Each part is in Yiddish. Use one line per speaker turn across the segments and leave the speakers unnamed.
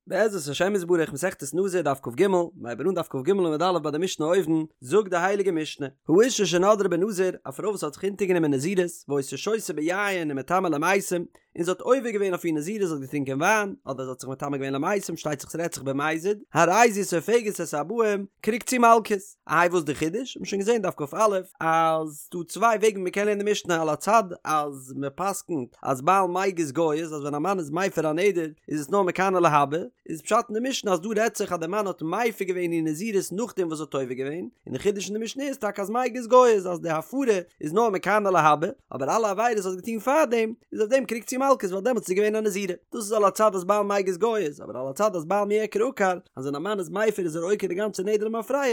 בעזרת השם יתברך מסכת נזיר דף כג, מ'הייבט אן דף כג עמוד א' ביי די משנה אויבן, זאגט די הייליגע משנה, האשה שנדרה בנזיר, א פרוי וואס האט זיך אונטערגענומען נזירות, והיתה שותה ביין ומטמאה למתים, און זי האט עובר געווען אויף איר נזירות זי האט געטרינקען וויין, אדער זי האט זיך מטמא געווען למתים, שטייט זיך ס'רעדט זיך במזיד, הרי זו סופגת את הארבעים, קריגט זי מלקות. איי וואס די חידוש? מ'האט שוין געזען דף כא אז ס'דא צוויי וועגן ווי מ'קען לערנען די משנה על הצד אז מ'פסק'נט אז בעל מיגז גייז אז ווען א מאן איז מפר א נדר איז עס נאר מכאן ולהבא, איז פשט אין די משנה אז דא רעדט זיך אז די מאן האט מפר געווען איר נזירות נאכדעם וואס זי האט עובר געווען, און די חידוש אין די משנה איז טאקע אז מיגז גייז אז די הפרה איז נאר מכאן ולהבא, אבער אלע עבירות וואס זי האט געטון פארדעם איז אויף דעם קריגט זי מלקות ווייל דעמאלטס איז זי געווען א נזירה. דאס איז על הצד אז בעל מיגז גייז, אבער על הצד אז בעל מיעקר עקר, אז ווען א מאן איז מפר איז ער עוקר די גאנצע נדר למפרע,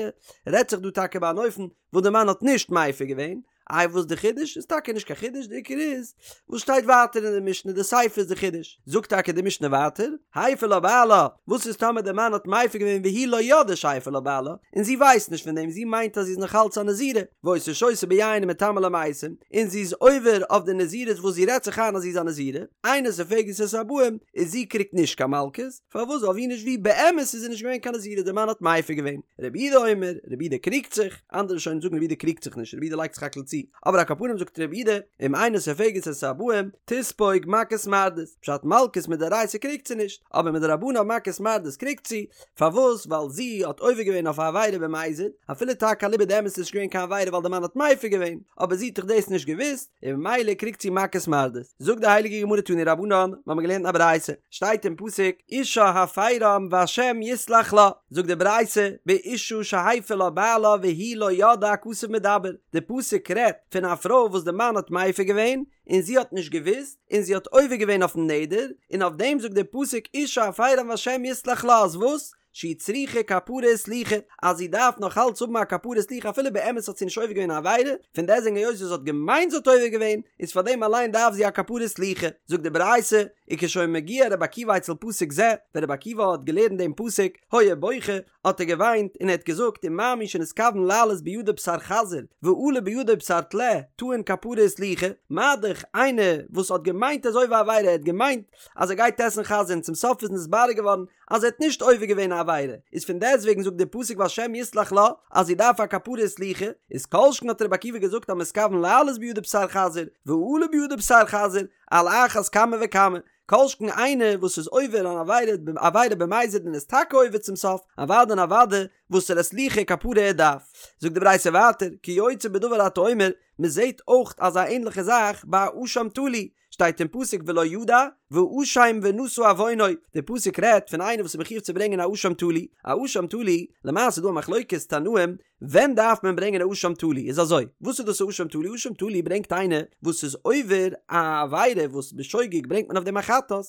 רעדט זיך דא טאקע ביי אן אופן וואס די מאן האט נישט מפר געווען, איי וואס די חידוש? איז טאקע נישט קיין חידוש, די עיקר איז וואס שטייט ווייטער אין די משנה, די סיפא איז די חידוש, זאגט טאקע די משנה ווייטער, הפר לה בעלה, וואס איז טאמער די מאן האט מפר געווען והיא לא ידעה שהפר לה בעלה, און זי ווייסט נישט פון דעם, זי מיינט אז זי איז נאך אלץ א נזירה, והיתה שותה ביין ומטמאה למתים, און זי איז עובר אויף די נזירות וואס זי רעדט זיך איין אז זי איז א נזירה, אינה סופגת את הארבעים, איז זי קריגט נישט קיין מלקות, פארוואס ווייל ווי נישט ווי באמת איז זי נישט געווען קיין נזירה די מאן האט מפר געווען, רבי יהודה אומר, רבי יהודה קריגט זיך, אנדערע ראשונים זאגן רבי יהודה קריגט זיך נישט רבי יהודה לייגט זיך האקל צו, אבער על כל פנים זאגט רבי יהודה, אם אינה סופגת את הארבעים, תספוג מכות מרדות, פשט מלקות מדאורייתא קריגט זי נישט, אבער מדרבנן מכות מרדות קריגט זי, פארוואס ווייל זי האט עובר געווען אויף א עבירה במזיד, אפילו טאקע אליבא דאמת איז נישט געווען קיין עבירה ווייל די מאן האט מפר געווען, אבער זי האט דאך דאס נישט געוואוסט, און ממילא קריגט זי מכות מרדות. זאגט די הייליגע גמרא תנו רבנן, מיר האבן געלערנט אין א ברייתא, שטייט אין פסוק, אישה הפרם והשם יסלח לה, זאגט די ברייתא, באשה שהפר לה בעלה והיא לא ידעה הכתוב מדבר, די פסוק רעדט פון א פרוי וואס די מאן האט מפר געווען, און זי האט נישט געוואוסט, און זי האט עובר געווען אויפן נדר, און אויף דעם זאגט דער פסוק אישה הפרם והשם יסלח לה אז וואס? שהיא צריכה כפרה וסליחה, אז זי דארף נאך אלץ האבן א כפרה וסליחה אפילו באמת האט זי נישט עובר געווען א עבירה, פון דעסטוועגן היות זי האט געמיינט זי האט עובר געווען, איז פאר דעם אליין דארף זי א כפרה וסליחה. זאגט די ברייתא, וכשהיה מגיע רבי עקיבא אצל פסוק זה, ווען רבי עקיבא האט געלערנט דעם פסוק, היה בוכה, האט ער געוויינט און ער האט געזאגט ומה מי שנתכוון לעלות בידו בשר חזיר ועלה בידו בשר טלה טעון כפרה וסליחה, מה דאך איינער וואס האט געמיינט ער איז עובר א עבירה ער האט געמיינט אז ער גייט עסן חזיר און צום סוף איז נתברר געווארן אז ער האט נישט עובר געווען א עבירה איז פון דעסט וועגן זאגט דער פסוק והשם יסלח לה אז זי דארף א כפרה וסליחה איז כל שכן האט רבי עקיבא געזאגט המתכוון לעלות בידו בשר חזיר ועלה בידו בשר חזיר על אחת כמה וכמה כל שכן איינער וואס איז עובר אן עבירה עבירה במזיד און איז טאקע עובר צום סוף, אוודאי און אוודאי וואסערע סליחה כפרה ער דארף. זאגט די ברייתא ווייטער, כיוצא בדבר אתה אומר, מען זעט אויך אזא ענליכע זאך ביי א אשם תלוי, שטייט אין פסוק ולא ידע, והאשם ונשא עוונו, די פסוק רעדט פון איינער וואס איז מחיוב צו ברענגען א אשם תלוי, א אשם תלוי, למעשה איז דא א מחלוקת תנאים ווען דארף מען ברענגען א אשם תלוי? איז אזוי, וואס איז דאס א אשם תלוי? אשם תלוי ברענגט איינער וואס איז עובר א עבירה וואס בשוגג ברענגט מען אויף דעם א חטאת,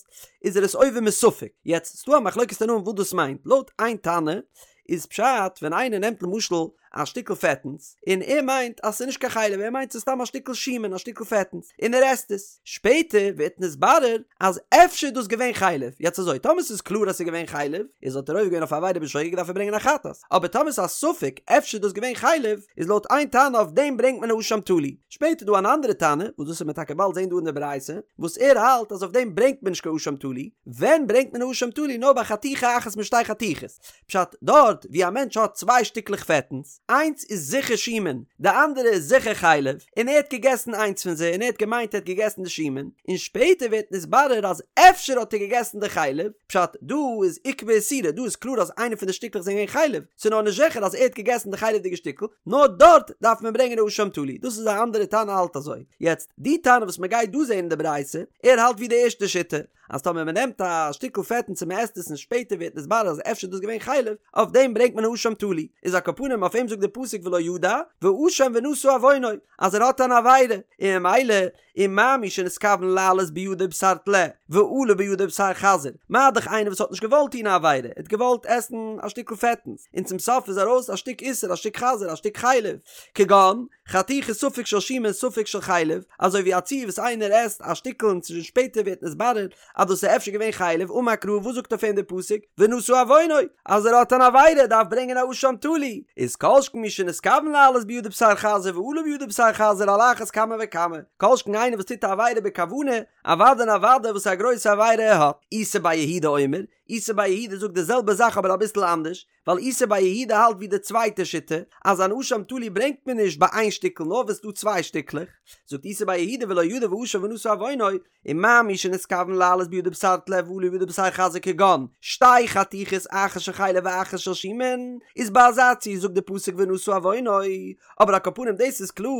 איז ער עס עובר מספק. יעצט, ס'דא א מחלוקת תנאים וואס דאס מיינט. לויט איין תנא איז פשט ווען איינער נעמט למשל א שטיקל פעטנס און ער מיינט אז ס'איז נישט קיין חלב ער מיינט ס'איז סתם א שטיקל שומן א שטיקל פעטנס און ער עסט עס. שפעטער ווערט נתברר אז אפשר איז דאס געווען חלב, יעצט אזוי, טאמער ס'איז קלאר אז ס'איז געווען חלב, איז האט ער עובר געווען אויף א עבירה בשוגג דארף ער ברענגען א חטאת, אבער טאמער ס'איז א ספק אפשר איז דאס געווען חלב, איז לויט איין תנא אויף דעם ברענגט מען א אשם תלוי. שפעטער איז דא אן אנדערע תנא, וואס דאס וועט מען טאקע באלד זען דא אין די ברייתא, וואס ער האלט אז אויף דעם ברענגט מען נישט קיין אשם תלוי, ווען ברענגט מען א אשם תלוי נאר ביי חתיכה אחת משתי חתיכות, פשט, דארט ווי א מענטש האט צוויי שטיקלעך פעטנס, איינס איז זיכער שומן, די אנדערע איז זיכער חלב, און ער האט געגעסן איינס פון זיי און ער האט געמיינט ער האט געגעסן די שומן, און שפעטער ווערט נתברר אז אפשר האט ער געגעסן די חלב, פשט, דא איז אוקמה איסורא, דא איז קלאר אז איינע פון די שטיקלעך זענען געווען חלב, ס'איז נאר נישט זיכער אז ער האט געגעסן די חלב'דיגע שטיקל, נאר דארט דארף מען ברענגען א אשם תלוי, דאס איז א אנדערע תנא האלט אזוי. יעצט, די תנא וואס מ'גייט דא זען אין די ברייתא, ער האלט ווי די ערשטע שיטה, אז טאמער מען נעמט א שטיקל פעטנס און מען עסט עס און שפעטער ווערט נתברר אז אפשר איז דאס געווען חלב, אויף דעם ברענגט מען א אשם תלוי, איז על כל פנים אויף אים זאגט דער פסוק ולא ידע, והאשם ונשא עוונו, אז ער האט אן עבירה, און ממילא ומה מי שנתכוון לעלות בידו בשר טלה, ועלה בידו בשר חזיר, מה דאך איינער וואס האט נישט געוואלט טון א עבירה, ער האט געוואלט עסן א שטיקל פעטנס, און צום סוף איז ארויס א שטיק איסור, א שטיק חזיר, א שטיק חלב, כגון, חתיכת ספק של שומן ספק של חלב, אזוי ווי א ציור וואס איינער עסט א שטיקל און שפעטער ווערט נתברר אז דאס איז אפשר געווען חלב, אמר קרא וואס זאגט אויף אים דער פסוק ונשא עוונו אז ער האט אן עבירה דארף ברענגען א אשם תלוי, איז כל שכן מי שנתכוון לעלות בידו בשר חזיר ועלה בידו בשר חזיר על אחת כמה וכמה, כל שכן איינער וואס טוט א עבירה בכוונה, אוודאי און אוודאי וואס א גרויסע עבירה ער האט. איסי בר יהודה אומר. איסי בר יהודה זאגט די זעלבע זאך אבער אביסל אנדערש, ווייל איסי בר יהודה האלט ווי די צווייטע שיטה, אז אן אשם תלוי ברענגט מען נישט ביי איין שטיקל נאר ווען ס'דא צוויי שטיקלעך, זאגט איסי בר יהודה ולא ידע ואשם ונשא עוונו, ומה מי שנתכוון לעלות בידו בשר טלה ועלה בידו בשר חזיר כגון שתי חתיכות אחת של חלב ואחת של שומן, איז ביי אזא ציור זאגט די פסוק ונשא עוונו, אבער על כל פנים דאס איז קלאר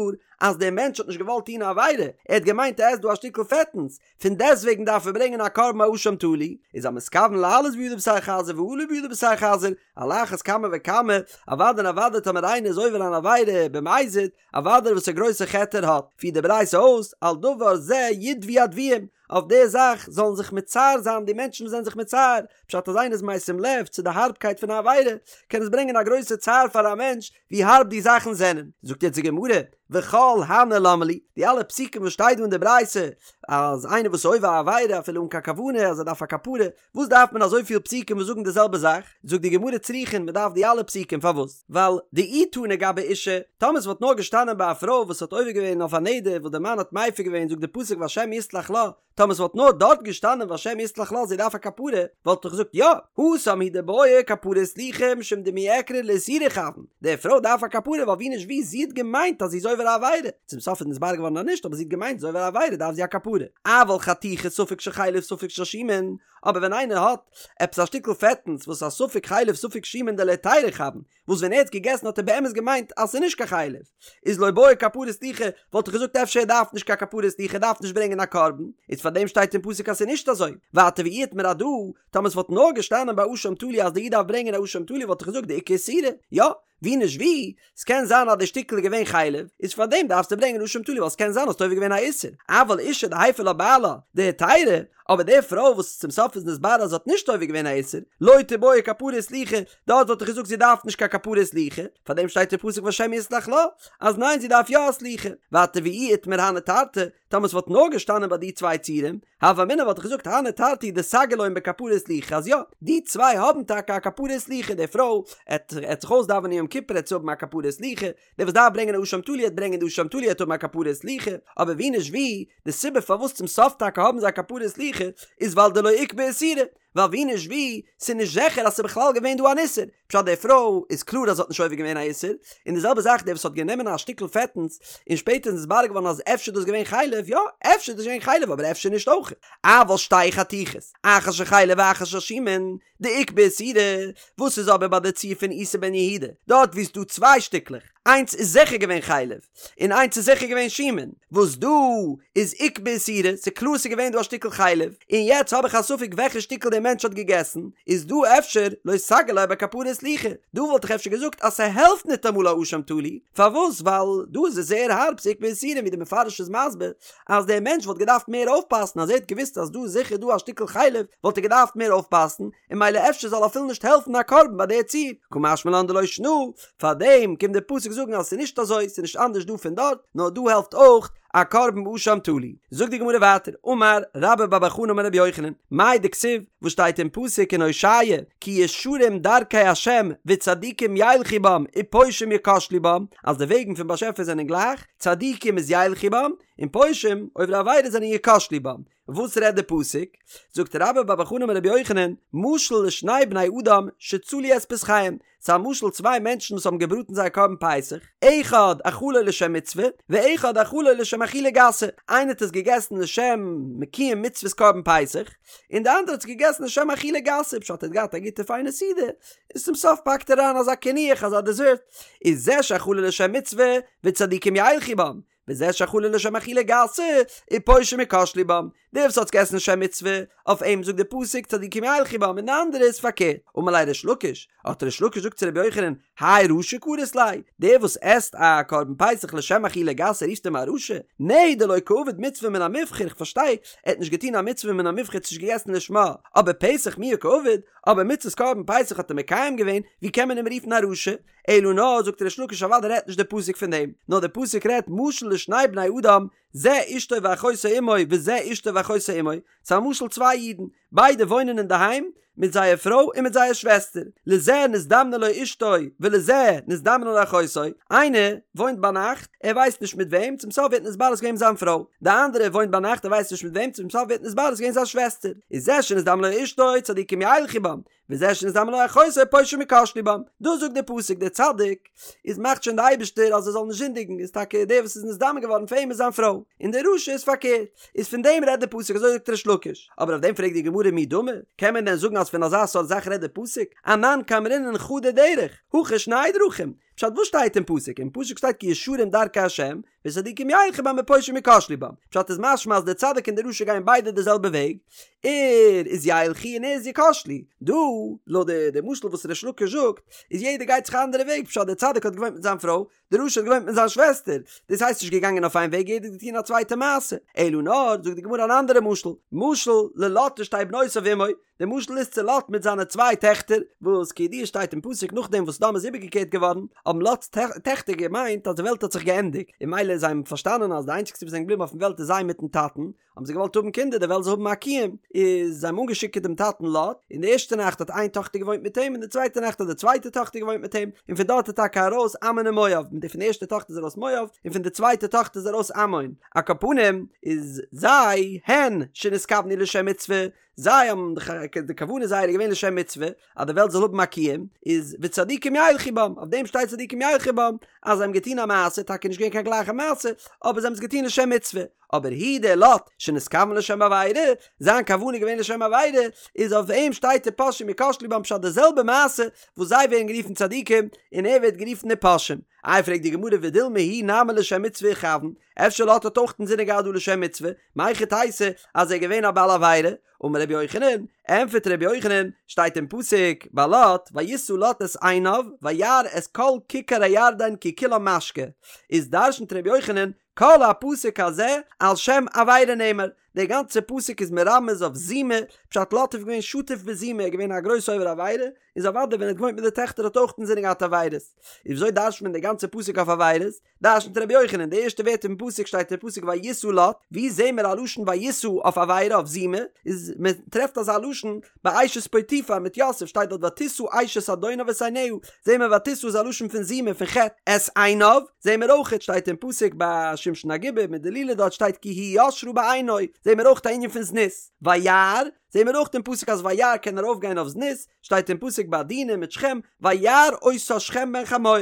אז דער מענטש האט נישט געוואלט טון א עבירה, ער האט געמיינט ער עסט דא א שטיקל פעטנס, פון דעסטוועגן דארף ער ברענגען א קרבן אשם תלוי, איז המתכוון לעלות בידו בשר חזיר ועלה בידו בשר חזיר, על אחת כמה וכמה, אוודאי און אוודאי טאמער איינער איז עובר אן עבירה במזיד, אוודאי וואס א גרויסע חטא ער האט, פירט די ברייתא אויס, על דבר זה ידוו הדוויים, אויף די זאך זאלן זיך מצער זיין די מענטשן וואס זענען זיך מצער, פשט אז איינער איז משים לב צו די הארבקייט פון א עבירה, קען עס ברענגען א גרויסע צער פאר א מענטש, ווי הארב די זאכן זענען. זאגט יעצט די גמרא, וכל הני למה לי, די אלע פסוקים וואס שטייט דא אין די ברייתא, אז איינער וואס איז עובר א עבירה אפילו אן קיין כוונה אז ער דארף א כפרה, וואס דארף מען אזויפיל פסוקים וואס זאגן די זעלבע זאך? זאגט די גמרא צריכין, מען דארף די אלע פסוקים, פארוואס? ווייל דאי תנא גבי אישה, טאמער ס'וואלט נאר געשטאנען ביי א פרוי וואס האט עובר געווען אויף א נדר וואס די מאן האט מפר געווען זאגט די פסוק והשם יסלח לה, טאמער ס'וואלט נאר דארט געשטאנען והשם יסלח לה זי דארף א כפרה, וואלט איך געזאגט יא, התם הוא דבעיא כפרה וסליחה משום דמעיקרא לאיסורא איכוון, די פרוי דארף א כפרה ווייל ווי נישט ווי זי האט געמיינט אז זי איז עובר א עבירה, צום סוף איז נתברר געווארן אז נישט אבער זי האט געמיינט זי איז עובר א עבירה דארף זי א כפרה. אבל חתיכה ספק של חלב ספק של שומן, אבער ווען איינער האט עפעס א שטיקל פעטנס וואס איז א ספק חלב ספק שומן דלהיתירא איכוון, וואס ווען ער האט געגעסן האט ער באמת געמיינט אז ס'איז נישט קיין חלב, איז לא בעיא כפרה וסליחה, וואלט איך געזאגט אפשר ער דארף נישט קיין כפרה וסליחה ער דארף נישט ברענגען א קרבן, איז פאר דעם שטייט אין פסוק אז ס'איז נישט אזוי, ווייטער ואי איתמר הדא, טאמער ס'וואלט נאר געשטאנען ביי אשם תלוי אז די איד דארף ברענגען א אשם תלוי וואלט איך געזאגט דאיכא איסורא, יא, ווי נישט ווי, ס'קען זיין אז די שטיקל איז געווען חלב, איז פאר דעם דארפסטו ברענגען אשם תלוי ווייל ס'קען זיין האסט עובר געווען א איסור, אבל אישה דהפר לה בעלה דהיתירא, אבער די פרוי וואס צום סוף איז נתברר אז זי האט נישט עובר געווען א איסור, לא תיבעי כפרה וסליחה, דארט וואלט איך געזאגט זי דארף נישט קיין כפרה וסליחה, פאר דעם שטייט אין פסוק והשם יסלח לה, אז ניין זי דארף יא א סליחה, ווייטער ואי איתמר הני תרתי, טאמער ס'וואלט נאר געשטאנען ביי די צוויי ציורים, הוה אמינא וואלט איך געזאגט הני תרתי דסגי להון בכפרה וסליחה אז יא, די צוויי האבן טאקע א כפרה וסליחה, די פרוי עט עט זיך אויסדאווענען יום כיפור עט זי האבן א כפרה וסליחה, דער וואס דארף ברענגען א אשם תלוי עט ברענגען די אשם תלוי עט האבן א כפרה וסליחה, אבער ווי נישט ווי, די סיבה פארוואס צום סוף טאקע האבן זיי א כפרה וסליחה איז ווייל דלא איקבע איסורא, ווייל ווי נישט ווי, ס'איז נישט זיכער אז ס'איז בכלל געווען דא אן איסור, פשט די פרוי איז קלאר אז זי האט נישט עובר געווען א איסור, און די זעלבע זאך דער וואס האט גענומען א שטיקל פעטנס און שפעטער איז נתברר געווארן אז אפשר איז דאס געווען חלב, יא, אפשר איז דאס געווען חלב אבער אפשר נישט אויך. אבל שתי חתיכות, אחת של חלב ואחת של שומן, דאיקבע איסורא, וואס איז אבער ביי די ציור פון איסי בן יהודה, דארט וואו ס'איז דא צוויי שטיקלעך, איינס איז זיכער געווען חלב, און איינס איז זיכער געווען שומן, וואס דא איז איקבע איסורא, ס'איז קלאר ס'איז געווען דא א שטיקל חלב, און יעצט האב איך א ספק וועלכע שטיקל דער מענטש האט געגעסן, איז דא אפשר לא סגי ליה בכפרה וסליחה, דא וואלט איך אפשר געזאגט אז ס'העלפט ניטאמאל א אשם תלוי, פארוואס ווייל דא איז עס זייער הארב ס'איקבע איסורא ווי דער מפרש איז מסביר אז דער מענטש וואלט געדארפט מער אויפפאסן אז ער האט געוואוסט אז דא איז זיכער דא א שטיקל חלב וואלט ער געדארפט מער אויפפאסן, און ממילא אפשר זאל אפילו נישט העלפן א קרבן ביי די ציור, קא משמע לן דלא שנא, פארדעם קומט דער פסוק זאגן אז עס איז נישט אזוי, עס איז נישט אנדערש דא פון דארט, נאר דא העלפט אויך א קרבן אשם תלוי. זאגט די גמרא ווייטער, אמר רבה בר בר חנה אמר רבי יוחנן, מאי דכתיב, וואס שטייט אין פסוק אין הושע, כי ישרים דרכי ה' וצדיקים ילכו בם ופושעים יכשלו בם, אז די וועגן פון באשעפער זענען גלייך, צדיקים איז ילכו בם, און פושעים, עוברי עבירה זענען יכשלו בם. וואס רעדט די פסוק? זאגט רבה בר בר חנה אמר רבי יוחנן, משל לשני בני אדם שצלו את פסחיהם, ס'איז א משל צוויי מענטשן וואס האבן געבראטן זייער קרבן פסח, אחד אכלו לשם מצוה, ואחד אכלו לשם אכילה גסה, איינער האט עס געגעסן לשם מקיים מצוות קרבן פסח, און די אנדערע האט עס געגעסן לשם אכילה גסה, פשט ער האט געהאט א גוטע פיינע סעודה, און צום סוף פאקט ער אריין אזא קינוח אזא דעזערט, איז זה שאכלו לשם מצוה, וצדיקים ילכו בם, וזה שאכלו לשם אכילה גסה, ופושעים יכשלו בם. דער וואס האט געגעסן לשם מצוה, אויף אים זאגט דער פסוק צדיקים ילכו בם, און די אנדערע איז פארקערט. אמר ליה ריש לקיש, האט ריש לקיש געזאגט צו רבי יוחנן, האי רשע קרית ליה, דער וואס עסט א קרבן פסח לשם אכילה גסה רופסט אים א רשע? נהי דלא קעביד מצוה מן המובחר, איך פארשטיי, ער האט נישט געטון א מצוה מן המובחר, ער האט נישט געגעסן לשמה, אבער פסח מיהא קעביד, אבער מצוות קרבן פסח האט ער מקיים געווען, ווי קען מען אים רופן א רשע? אלא נאר, זאגט ריש לקיש אוודאי רעדט נישט דער פסוק פון דעם, נאר דער פסוק רעדט משל לשני בני אדם זה אשתו ואחותו עמו וזה אשתו ואחותו עמו, ס'איז א משל צוויי אידן, ביידע וואוינען אינדערהיים מיט זייער פרוי און מיט זייער שוועסטער, לזה נזדמנה לו אשתו ולזה נזדמנה לו אחותו, איינער וואוינט ביינאכט, ער ווייסט נישט מיט וועם, צום סוף ווערט נתברר ס'איז געווען זיין פרוי, די אנדערע וואוינט ביינאכט ער ווייסט נישט מיט וועם, צום סוף ווערט נתברר ס'איז געווען זיין שוועסטער, איז זה שנזדמנה לו אשתו צדיקים ילכו בם, וזה שנזדמנה לו אחותו פושעים יכשלו בם, דאס זאגט דער פסוק דער צדיק איז מאכט שוין דער אייבערשטער אז ער זאל נישט זינדיגן איז טאקע דער וואס איז נזדמן געווארן פאר אים איז זיין פרוי, און דער רשע איז פארקערט, איז פון דעם רעדט דער פסוק אזוי זאגט ריש לקיש, אבער אויף דעם פרעגט די גמרא מי דמי, קען מען דען זאגן אז פון אזא סארט זאך רעדט דער פסוק, אנן קאמרינן חדא דרך, הכא שני דרכים, פשט וואס שטייט אין פסוק, אין פסוק שטייט כי ישרים דרכי ה', וצדיקים ילכו בם ופושעים יכשלו בם, פשט איז משמע אז דער צדיק און דער רשע גייען ביידע די זעלבע וועג, ער איז ילכו און ער איז יכשלו, דא, לויט די די משל וואס ריש לקיש זאגט, איז יעדער גייט זיך א אנדערע וועג, פשט דער צדיק האט געוואוינט מיט זיין פרוי, דער רשע האט געוואוינט מיט זיין שוועסטער, דאס הייסט נישט געגאנגען אויף איין וועג יעדער האט געטון א צווייטע מעשה, אלא נאר, זאגט די גמרא אן אנדערע משל, משל ללוט ושתי בנותיו עמו, די משל איז צו לוט מיט זיינע צוויי טעכטער, וואס כידוע שטייט אין פסוק נאכדעם וואס סדום איז איבערגעקערט געווארן, האבן לוט'ס טעכטער געמיינט אז די וועלט האט זיך געענדיגט, און מילא זיי האבן פארשטאנען אז די איינציגסטע וואס זענען געבליבן אויפן וועלט איז זיי מיטן טאטן, האבן זיי געוואלט האבן קינדער די וועלט זאל האבן א קיום, איז זיי האבן אנגעשיקערט דעם טאטן לוט, און די ערשטע נאכט האט איין טאכטער געוואוינט מיט אים און די צווייטע נאכט האט די צווייטע טאכטער געוואוינט מיט אים, און פון דארט איז טאקע ארויס עמון און מואב, פון די ערשטע טאכטער איז ארויס מואב, און פון די צווייטע טאכטער איז ארויס עמון, על כל פנים איז זיי, הן, שנתכוונו לשם מצוה, זיי האבן די כוונה זייערע איז געווען לשם מצוה, אז די וועלט זאל האבן א קיום, איז וצדיקים ילכו בם, אויף דעם שטייט צדיקים ילכו בם, אז זיי האבן געטון א מעשה, טאקע נישט געווען קיין גלייכע מעשה, אבער זיי האבן עס געטון לשם מצוה, אבער הוא דער לוט, שנתכוון לשם עבירה, זיין כוונה איז געווען לשם עבירה, איז אויף אים שטייט ופושעים יכשלו בם פשט די זעלבע מעשה וואס זיי ווערן גערופן צדיקים, און ער ווערט גערופן ופושעים. איי פרעגט די גמרא ודילמא הוא נמי לשם מצוה איכוון, אפשר לוט האט אויך אינזינען געהאט דא לשם מצוה, מהיכי תיתי אז ער איז געווען א בעל עבירה? אמר רבי יוחנן, ענפערט רבי יוחנן, שטייט אין פסוק ביי לוט, וישא לוט את עיניו וירא את כל כיכר הירדן כי כולה משקה, איז דרשנ'ט רבי יוחנן, כל הפסוק הזה על שם עבירה נאמר, דער גאנצער פסוק איז מרמז אויף זימה, פשט לוט איז געווען שטוף בזימה, ער איז געווען א גרויסע עובר עבירה, איז אוודאי ווען ער האט געוואוינט מיט די טעכטער האט ער אויך אינזינען געהאט עבירות, איז וויאזוי דרש'נט מען דער גאנצער פסוק אויף עבירות? דרשנ'ט רבי יוחנן, די ערשטע ווערטער פון פסוק שטייט אין פסוק וישא לוט, ווי זעהן מיר א לשון וישא אויף עבירה אויף זימה, איז מען טרעפט אזא לשון ביי אשת פוטיפר מיט יוסף שטייט דארט ותשא אשת אדוניו את עיניה, זעהן מיר ותשא איז א לשון פון זימה פון חטא, את עיניו, זעהן מיר אויכעט שטייט אין פסוק ביי שמשון הגיבור מיט דלילה דארט שטייט כי היא ישרה בעיני, זעהן מיר אויכט א ענין פון זנות, וירא, זעהן מיר אויך אין פסוק אז וירא קען ארויף גיין אויף זנות, שטייט אין פסוק ביי דינה מיט שכם, וירא אותה שכם בן חמור.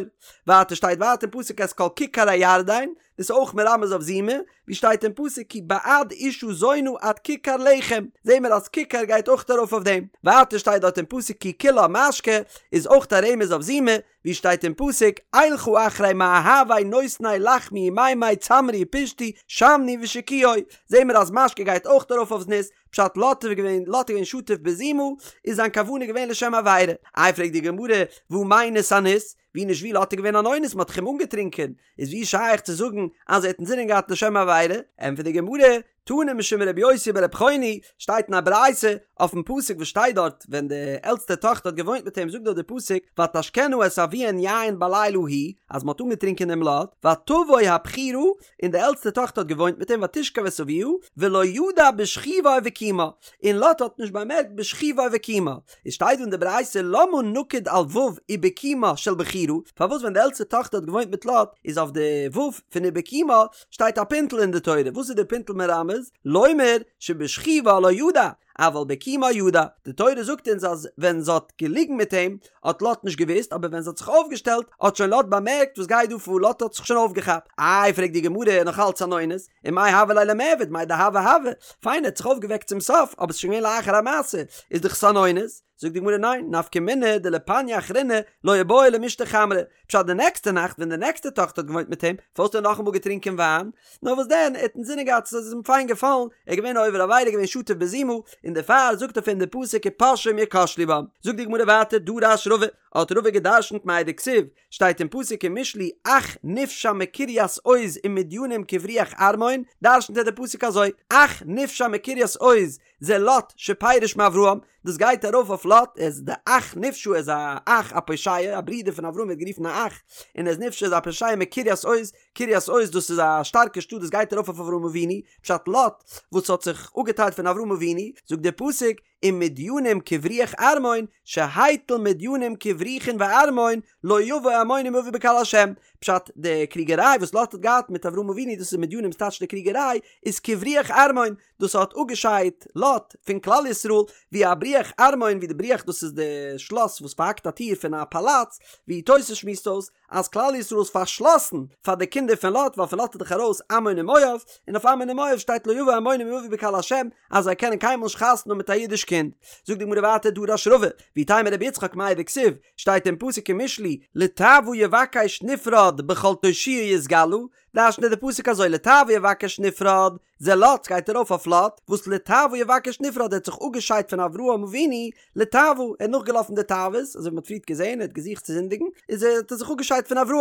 ווייטער שטייט ווייטער אין פסוק את כל כיכר הירדן, דאס איז אויך מרמז אויף זימה, ווי שטייט אין פסוק כי בעד אשה זונה עד כיכר לחם, זעהן מיר אז כיכר גייט אויך ארויף אויף דעם. ווייטער שטייט דארט אין פסוק כי כולה משקה, איז אויך א רמז אויף זימה, ווי שטייט אין פסוק אלכה אחרי מאהבי נותני לחמי ומימי צמרי ופשתי שמני ושקויי, זעהן מיר אז משקה גייט אויך ארויף אויף זנות, פשט לוט איז געווען לוט איז געווען שטוף בזימה, איז זיין כוונה געווען לשם עבירה. איי פרעגט די גמרא, והא מינס אניס, ווי נישט ווי לוט איז געווען אן אונס מען האט דאך אים אנגעטרינקען, איז ווי שייך צו זאגן אז ער האט אינזינען געהאט לשם עבירה? ענטפערט די גמרא, תנא משום רבי יוסי ברבי חוני, שטייט אין א ברייתא אויפן פסוק וואס שטייט דארט ווען די עלטסטע טאכטער האט געוואוינט מיט אים זאגט דארט די פסוק ותשקנה את אביהן יין בלילה ההוא אז מען האט אנגעטרינקען דעם לוט ותבוא הבכירה און די עלטסטע טאכטער האט געוואוינט מיט אים ותשכב את אביה ולא ידע בשכבה ובקומה און לוט האט נישט באמערקט בשכבה ובקומה איז שטייט דא אין די ברייתא למה נקוד על ו' ובקומה של בכירה פארוואס ווען די עלטסטע טאכטער האט געוואוינט מיט לוט איז אויף די ו' פון ובקומה שטייט א פינטל אין די תורה, וואס איז די פינטל מרמז? לומר שבשכיבה לא ידע, אבל בקימה ידע, די תורה זאגט אונז אז ווען זי האט געליגן מיט אים האט לוט נישט געוואוסט, אבער ווען זי האט זיך אויפגעשטעלט האט שוין לוט באמערקט וואס גייט דא פאר, לוט האט זיך שוין אויפגעכאפט. איי פרעגט די גמרא, נאך אלץ אן אונס, ומאי הוה ליה למיעבד, מאי דהוה הוה, פיין ער האט זיך אויפגעוועקט צום סוף, אבער ס'איז שוין געווען לאחר המעשה, איז דאך עס אן אונס. זאגט די גמרא ניין, נפקא מינה דלפניא אחרינא לא איבעי למישתי חמרא, פשט די נעקסטע נאכט ווען די נעקסטע טאכטער האט געוואוינט מיט אים, פארוואס האט ער נאכאמאל געטרינקען וויין? נאר וואס דען, ער האט אינזינען געהאט עס איז אים פיין געפאלן, ער איז געווען א עובר עבירה געווען שטוף בזימה, און דערפאר זאגט אויף אים די פסוק ופושעים יכשלו בם. זאגט די גמרא ווייטער דרש רבא, האט רבא גע'דרשנ'ט מאי דכתיב, שטייט אין פסוק אין משלי אח נפשע מקרית עוז ומדינים כבריח ערמון, דרשנ'ט ער די פסוק אזוי, אח נפשע מקרית עוז זה לוט שפירש מאברהם, דאס גייט ארויף אויף לוט, ער איז די אח נפשע ער איז א אח א פושע, א ברודער פון אברהם ווערט גערופן א אח, און ער איז נפשע איז א פושע מקרית עוז, קרית עוז דאס איז א שטארקע שטאט דאס גייט ארויף אויף אברהם אבינו, פשט לוט וואס האט זיך אפגעטיילט פון אברהם אבינו, זאגט דער פסוק, ומדינים כבריח ערמון, שהטיל מדינים כבריחין וערמון, לא יבא עמוני ומואבי בקהל השם. פשט, די קריגעריי וואס לוט האט געהאט מיט אברהם אבינו, דאס איז מדינים ס'טייטש די קריגעריי, איז כבריח ערמון, דאס האט אפגעשיידט לוט פון כלל ישראל, ווי א בריח ערמון, ווי די בריח דאס איז די שלאס וואס פארהאקט א טיר פון א פאלאץ, ווי תוס' שמועסט אויס, אז כלל ישראל איז פארשלאסן פאר די קינדער פון לוט, ווייל פון לוט איז דאך ארויס עמון און מואב, און אויף עמון און מואב שטייט לא יבא עמוני ומואבי בקהל השם, אז זיי קענען קיינמאל נישט חתונה האבן מיט א אידיש קינד. זאגט די גמרא ווייטער דרש רבא, ואיתימא רבי יצחק מאי דכתיב, שטייט אין פסוק אין משלי, לתאוה יבקש נפרד בכל תושיה יתגלה, דרש'נט ער די פסוק אזוי לתאוה יבקש נפרד, זה לוט גייט ארויף אויף לוט, וואס לתאוה יבקש נפרד ער האט זיך אפגעשיידט פון אברהם אבינו, לתאוה, ער האט נאכגעלאפן די תאוות, אזוי ווי מען האט פריערט געזען, ער האט געזוכט צו זינדיגן, איז ער האט ער זיך אפגעשיידט פון אברהם,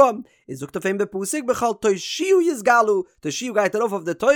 און זאגט אויף אים די פסוק בכל תושיה יתגלה, תושיה גייט ארויף אויף די תורה,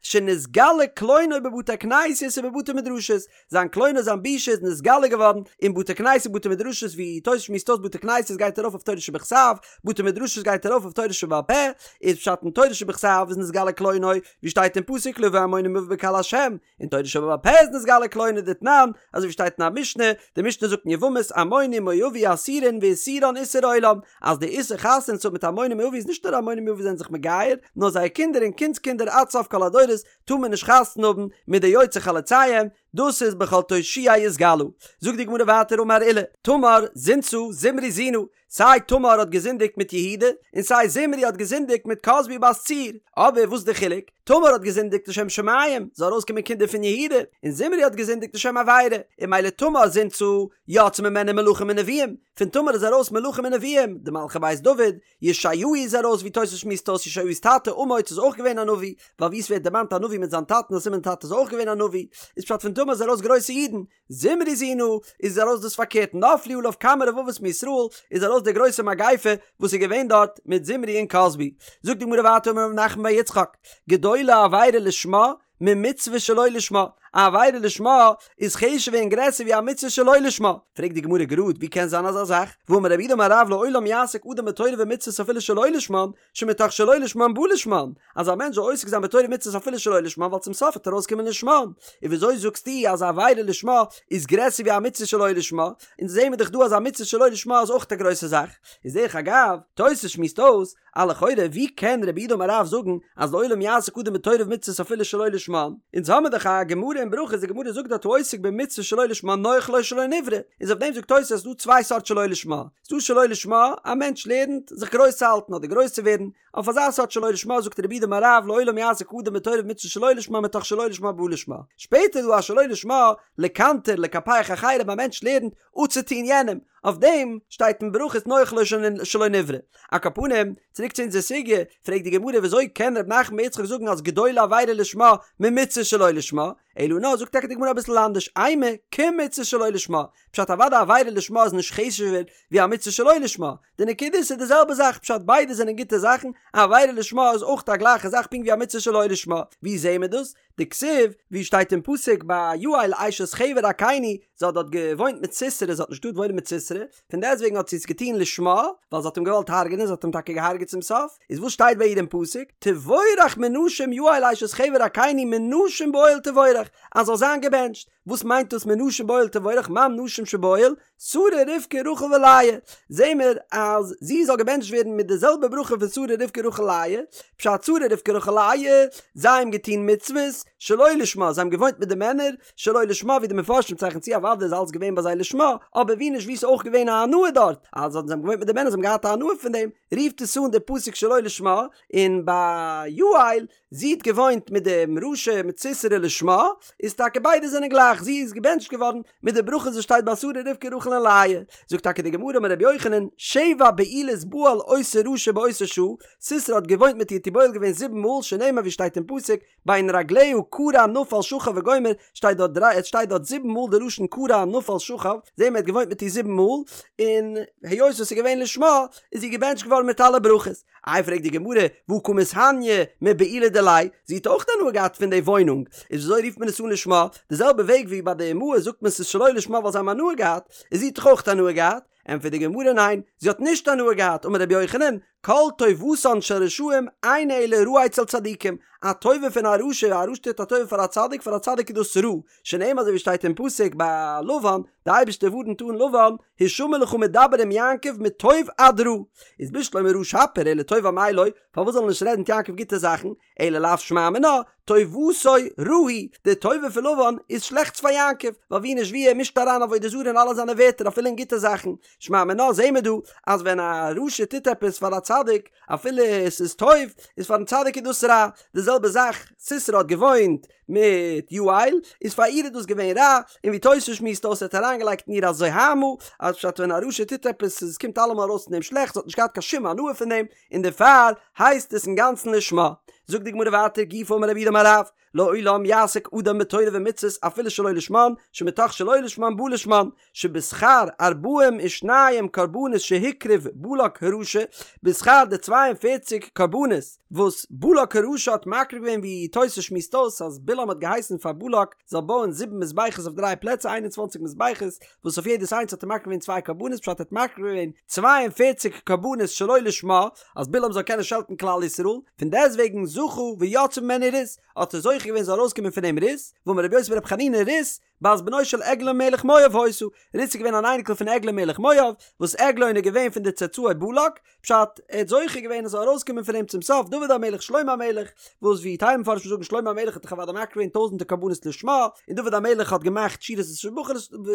שנתגלה קלונו בבתי כנסיות ובבתי מדרשות, זיין קלונו זיין בושה איז נתגלה געווארן אין בתי כנסת און בתי מדרשות ווי תוס' שמועסט אויס בתי כנסת גייט ארויף אויף תורה שבכתב, בתי מדרשות גייט ארויף אויף תורה שבעל פה, איז פשט אין תורה שבכתב איז נתגלה קלונו, ווי שטייט אין פסוק לא יבא עמוני ומואבי בקהל השם, אין תורה שבעל פה איז נתגלה קלונו דתנן, אזוי ווי שטייט אין א משנה, די משנה זאגט אין יבמות עמוני ומואבי אסורין ואיסורן איסור עולם, אז די איסור חתונה צו האבן מיט עמוני ומואבי איז נישט נאר עמוני ומואבי זענען זיך מגייר, נאר זייער קינדער און קינדס קינדער עד סוף כל הדורות טאר מען נישט חתונה האבן מיט די יוצאי חלציהם, דאס איז בכל תושיה יתגלה. זאגט די גמרא ווייטער אמר עולא, תמר זינתה זמרי זינה, סיי תמר האט געזינדיגט מיט יהודה, און סיי זמרי האט געזינדיגט מיט כזבי בת צור, אבער וואס איז די חילוק? תמר האט געזינדיגט לשם שמים, זאל ארויסקומען קינדער פון יהודה, און זמרי האט געזינדיגט לשם עבירה, און ממילא תמר זינתה יצאו ממנה מלכים ונביאים, פון תמר איז ארויס מלכים און נביאים, די מלכי בית דוד, ישעיהו איז ארויס ווי תוס' שמועסט אויס ישעיהו'ס טאטע אמוץ איז אויך געווען א נביא, ווייל ווי עס ווערט דערמאנט א נביא מיט זיין טאטן איז א סימן טאטע איז אויך געווען א נביא, איז פשט פון תמר איז ארויס גרויסע אידן, זמרי זינה איז ארויס דאס פארקערט נפלו עליו כמה רבבות מישראל איז ארויס די גרויסע מגיפה וואס איז געווען דארט מיט זמרי און כזבי. זאגט די גמרא ווייטער אמר רב נחמן בר יצחק גדולה עבירה לשמה ממצוה שלא לשמה, א עבירה לשמה איז חשוב'ער און גרעסער ווי א מצוה שלא לשמה. פרעגט די גמרא גראד, ווי קען זיין אזא זאך? והאמר רב יהודה אמר רב לעולם יעסוק אדם בתורה ומצוות אפילו שלא לשמן, שמתוך שלא לשמן בא לשמן, אז א מענטש זאל עוסק זיין בתורה ומצוות אפילו שלא לשמן ווייל צום סוף וועט ארויסקומען לשמן. און וויאזוי זאגסטו אז א עבירה לשמה איז גרעסער ווי א מצוה שלא לשמה? אונז זעהן מיר דאך דא אז א מצוה שלא לשמה איז אויך א גרויסע זאך. איז דרך אגב, תוס' שמועסט אויס, א לכאורה ווי קען רב יהודה אמר רב זאגן אז לעולם יעסוק אדם בתורה ומצוות אפילו שלא לשמן? אונז האמיר דאך א גמרא אין ברכות די גמרא זאגט דארט העוסק במצוה שלא לשמה נוח לו שלא נברא, איז אויף דעם זאגט תוס' אז ס'דא צוויי סארט שלא לשמה, ס'דא שלא לשמה א מענטש לערנט זיך גרויס צו האלטן אדער גרויס צו ווערן, אויף אזא סארט שלא לשמה זאגט רב יהודה אמר רב לעולם יעסוק אדם בתורה ומצוות שלא לשמה מתוך שלא לשמה בא לשמה, שפעטער איז דא א שלא לשמה לקנטר לקפח אחרים א מענטש לערנט אפצוטוהן יענעם, אויף דעם שטייט אין ברכות נוח לו שלא נברא. על כל פנים, צוריק צו אונזער סוגיא, פרעגט די גמרא וויאזוי קען ר' נחמן בר יצחק זאגן אז גדולה עבירה לשמה ממצוה שלא לשמה, אלא נאר זאגט טאקע די גמרא אביסל אנדערש, אימא כמצוה שלא לשמה, פשט אוודאי עבירה לשמה איז נישט חשוב'ער ווי א מצוה שלא לשמה, די נקודה איז ס'איז די זעלבע זאך, פשט ביידע זענען גוטע זאכן, א עבירה לשמה איז אויך א גלייכע זאך פונקט ווי א מצוה שלא לשמה, ווי זעהן מיר דאס? דכתיב, ווי שטייט אין פסוק ביי יעל אשת חבר הקיני, זי האט דארט געוואוינט מיט סיסרא, זי האט נישט געטארט וואוינען מיט סיסרא, פון דעסטוועגן האט זי עס געטון לשמה, ווייל זי האט אים געוואלט הרג'נען, זי האט אים טאקע געהארגעט צום סוף, איז וואס שטייט ביי איר אין פסוק, תבורך מנשים יעל אשת חבר הקיני מנשים באוהל תבורך, אז זאל זיין געבענטשט, וואס מיינט דאס מנשים באוהל תבורך, מאן נשים שבאוהל, שרה רבקה רחל ולאה, זעהן מיר אז זי זאל געבענטשט ווערן מיט די זעלבע ברכה פון שרה רבקה רחל לאה, פשט שרה רבקה רחל לאה, זיי האבן געטון מצוות שלא לשמה, זיי האבן געוואוינט מיט די מענער שלא לשמה, ווי די מפרשים צייכן צו אוודאי איז אלץ געווען ביי זיי לשמה, אבער ווי נישט ווי ס'איז אויך געווען א הנאה דארט, אז זיי האבן געוואוינט מיט די מענער זיי האבן געהאט א הנאה פון דעם, רופט עס אן די פסוק שלא לשמה, און ביי יעל זי האט געוואוינט מיט דעם רשע מיט סיסרא לשמה, איז טאקע ביידע זענען גלייך. זאך, זי איז געבענטשט געווארן מיט די ברכות וואס שטייט ביי שרה רבקה רחל און לאה. זאגט טאקע די גמרא אמר רבי יוחנן, שבע בעילות בעל אותו רשע באותה שעה, סיסרא האט געוואוינט מיט איר האט איר בועל געווען זיבן מאל, שנאמר ווי שטייט אין פסוק, בין רגליה כרע נפל שכב וגומר, שטייט דארט דריי, עס שטייט דארט זיבן מאל די לשון כרע נפל שכב, זעהן מיר ער האט געוואוינט מיט איר זיבן מאל, און היות עס איז געווען לשמה, איז זי געבענטשט געווארן מיט אלע ברכות. איי פרעגט די גמרא, והא קא מתהניא מבעילה דיליה, זי האט אויך הנאה געהאט פון די וואוינונג, איז וויאזוי רופט מען עס אן לשמה? די זעלבע וועג ווי ביי די אמהות זאגט מען ס'איז שלא לשמה ווייל זיי האבן הנאה געהאט, איז זי האט דאך אויך הנאה געהאט, ענטפערט די גמרא ניין, זי האט נישט הנאה געהאט, אמר רבי יוחנן, כל טובתן של רשעים אינה אלא רעה אצל צדיקים, א טובה פון א רשע, א רשע טוט א טובה פאר א צדיק, פאר א צדיק איז דאס רע, שנאמר אזוי ווי שטייט אין פסוק ביי לבן, די אייבערשטער ווארנט אן לבן, השמר לך מדבר עם יעקב מטוב עד רע, איז בשלמא רע שפיר אלא טוב אמאי לא, פארוואס זאל ער נישט רעדן מיט יעקב גוטע זאכן, אלא לאו שמע מינה, טובתו רעה היא, די טובה פון לבן איז שלעכטס פאר יעקב, ווייל ווי נישט ווי ער מישט אריין עבודה זרה אין אלע זיינע ווערטער אפילו אין גוטע זאכן, שמע מינה זעהן מיר דא אז ווען א רשע טוט עפעס פאר א צדיק אפילו עס איז טוב, איז פארן צדיק איז דאס רע, די זעלבע זאך סיסרא האט געוואוינט מיט יעל, איז פאר איר איז דאס געווען רע, און ווי תוס' שמועסט אויס ער האט אריינגעלייגט אין איר א זוהמא, אז פשט ווען א רשע טוט עפעס עס קומט אלעמאל ארויס פון דעם שלעכטס, זי האט נישט געהאט קיין שום הנאה פון דעם, און דערפאר הייסט עס אינגאנצן לשמה. זאגט די גמרא ווייטער גופא אמר רב יהודה אמר רב, לעולם יעסוק אדם בתורה ומצוות אפילו שלא לשמן, שמתוך שלא לשמן בא לשמן, שבשכר ארבעים ושניים קרבנות שהקריב בלק הרשע, בשכר די צוויי און פערציג קרבנות וואס בלק הרשע האט מקריב געווען ווי תוס' שמועסט אויס אז בלעם האט געהייסן פאר בלק זאל בויען זיבן מזבחות אויף דריי פלעצער איין און צוואנציג מזבחות וואס אויף יעדעס איינס האט ער מקריב געווען צוויי קרבנות פשט ער האט מקריב געווען 42 קרבנות שלא לשמה אז בלעם זאל קענען שעלטן כלל ישראל פון דעסטוועגן זכה ויצאה ממנו רות האט ער זוכה געווען זאל ארויסקומען פון אים רות ואמר רבי יוסי ברבי חנינא רות בת בנו של עגלון מלך מואב היתה רות איז געווען אן אייניקל פון עגלון מלך מואב וואס עגלון איז געווען פון די צאצאי בלק פשט, ער האט זוכה געווען עס זאל ארויסקומען פון אים צום סוף דוד המלך שלמה המלך, וואס ווי טייל מפרשים זאגן שלמה המלך האט דאך אוודאי מקריב געווען טויזענטער קרבנות לשמה, און דוד המלך האט געמאכט שירות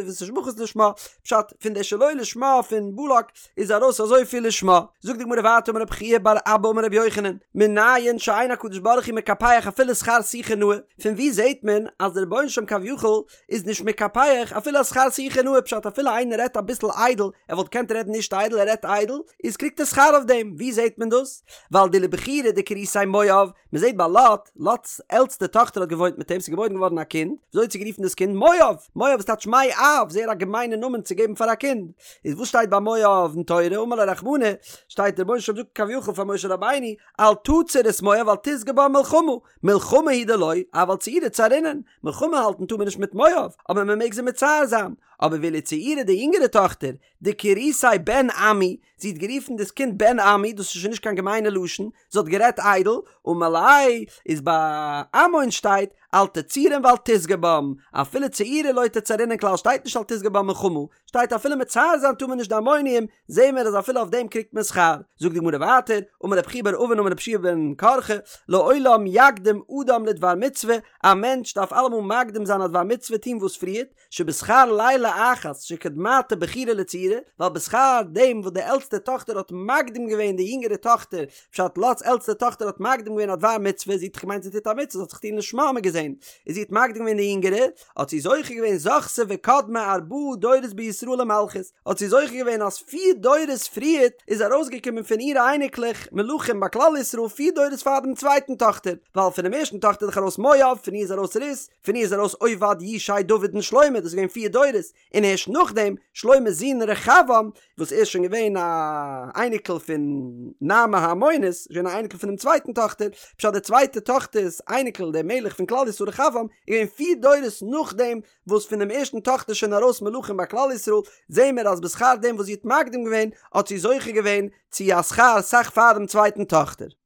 ותשבחות לשמה, פשט, פון די שלא לשמה פון בלק איז ארויס אזויפיל לשמה. זאגט די גמרא ווייטער אמר רב חייא בר אבא אמר רבי יוחנן, מנין שאין הקדוש ברוך הוא מקפח אפילו שכר שיחה נאה, פון וואו זעט מען אז דער רבונו של עולם כביכול איז נישט מקפח אפילו א שכר שיחה נאה פשט אפילו איינער רעדט אביסל איידל ער וואלט געקענט רעדן נישט איידל ער רעדט איידל איז קריגט ער שכר אויף דעם ווי זעהט מען דאס ווייל דלבכירא דקריתיה מואב מען זעהט ביי לוט לוט'ס עלטסטע טאכטער האט געוואוינט מיט אים ס'איז געבוירן געווארן א קינד וויאזוי האט זי גערופן דאס קינד מואב מואב איז טייטש מאב זייער א געמיינע נאמען צו געבן פאר א קינד איז וואס שטייט ביי מואב אין תורה אמר ליה רחמנא שטייט דער רבונו של עולם זאגט כביכול פאר משה רבינו אל תצר את מואב ואל תשגה בם מלחמה מלחמה הוא דלא אבל צעורי צערינן מלחמה האלטן טאר מען נישט מיט מואב, אבער מען מעג זיי מצער זיין. אבער ואילו צעירה די יונגערע טאכטער, דקריתיה בן עמי, זי האט גערופן דאס קינד בן עמי, דאס איז שוין נישט קיין געמיינע לשון, זי האט גערעדט איידל, אמר ליה, איז ביי עמון שטייט, אל תצורם ואל תשגה בם, אפילו צעורי לא תצערינן כלל שטייט נישט אל תשגה בם מלחמה, שטייט אפילו מצער זיין טאר מען נישט די עמונים, זעהן מיר אז אפילו אויף דעם קריגט מען שכר. זאגט די גמרא ווייטער, אמר רב חייא בר אבין אמר רבי יהושע בן קרחה, לעולם יקדים אדם לדבר מצוה, א מענטש דארף אלעמאל מקדים זיין א דבר מצוה טון וואס פריערט, שבשכר לילה אחת שקדמתה בכירה לצעירה, ווייל בשכר דעם וואס די עלטסטע טאכטער האט מקדים געווען די יונגערע טאכטער, פשט לוט'ס עלטסטע טאכטער האט מקדים געווען א דבר מצוה, זי האט דאך געמיינט זי טוט א מצוה, זי האט זיך טון לשמה האט מען געזען, איז זי האט מקדים געווען די יונגערע, האט זי זוכה געווען זכתה וקדמה ארבעה דורות בישראל למלכות, האט זי זוכה געווען אז פיר דורות פריערט איז ארויסגעקומען פון אירע אייניקלעך מלכים ביי כלל ישראל פיר דורות פאר דעם צווייטן טאכטער, ווייל פונעם ערשטן טאכטער איז דאך ארויס מואב, פון איר איז ארויס רות, פון איר איז ארויס עובד, ישי, דוד און שלמה, דאס איז געווען פיר דורות, און הערשט נאכדעם שלמה'ס זון רחבעם, וואס ער איז שוין געווען א אייניקל פון נעמה העמונית, איז געווען א אייניקל פונעם צווייטן טאכטער, פשט די צווייטע טאכטער'ס אייניקל דער מלך פון כלל ישראל רחבעם, איז געווען פיר דורות נאכדעם וואס פונעם ערשטן טאכטער איז שוין ארויס מלכים ביי כלל ישראל, זעהן מיר אז בשכר דעם וואס זי האט מקדים געווען, האט זי זוכה געווען צו א שכר סאך פאר דעם צווייטן טאכטער.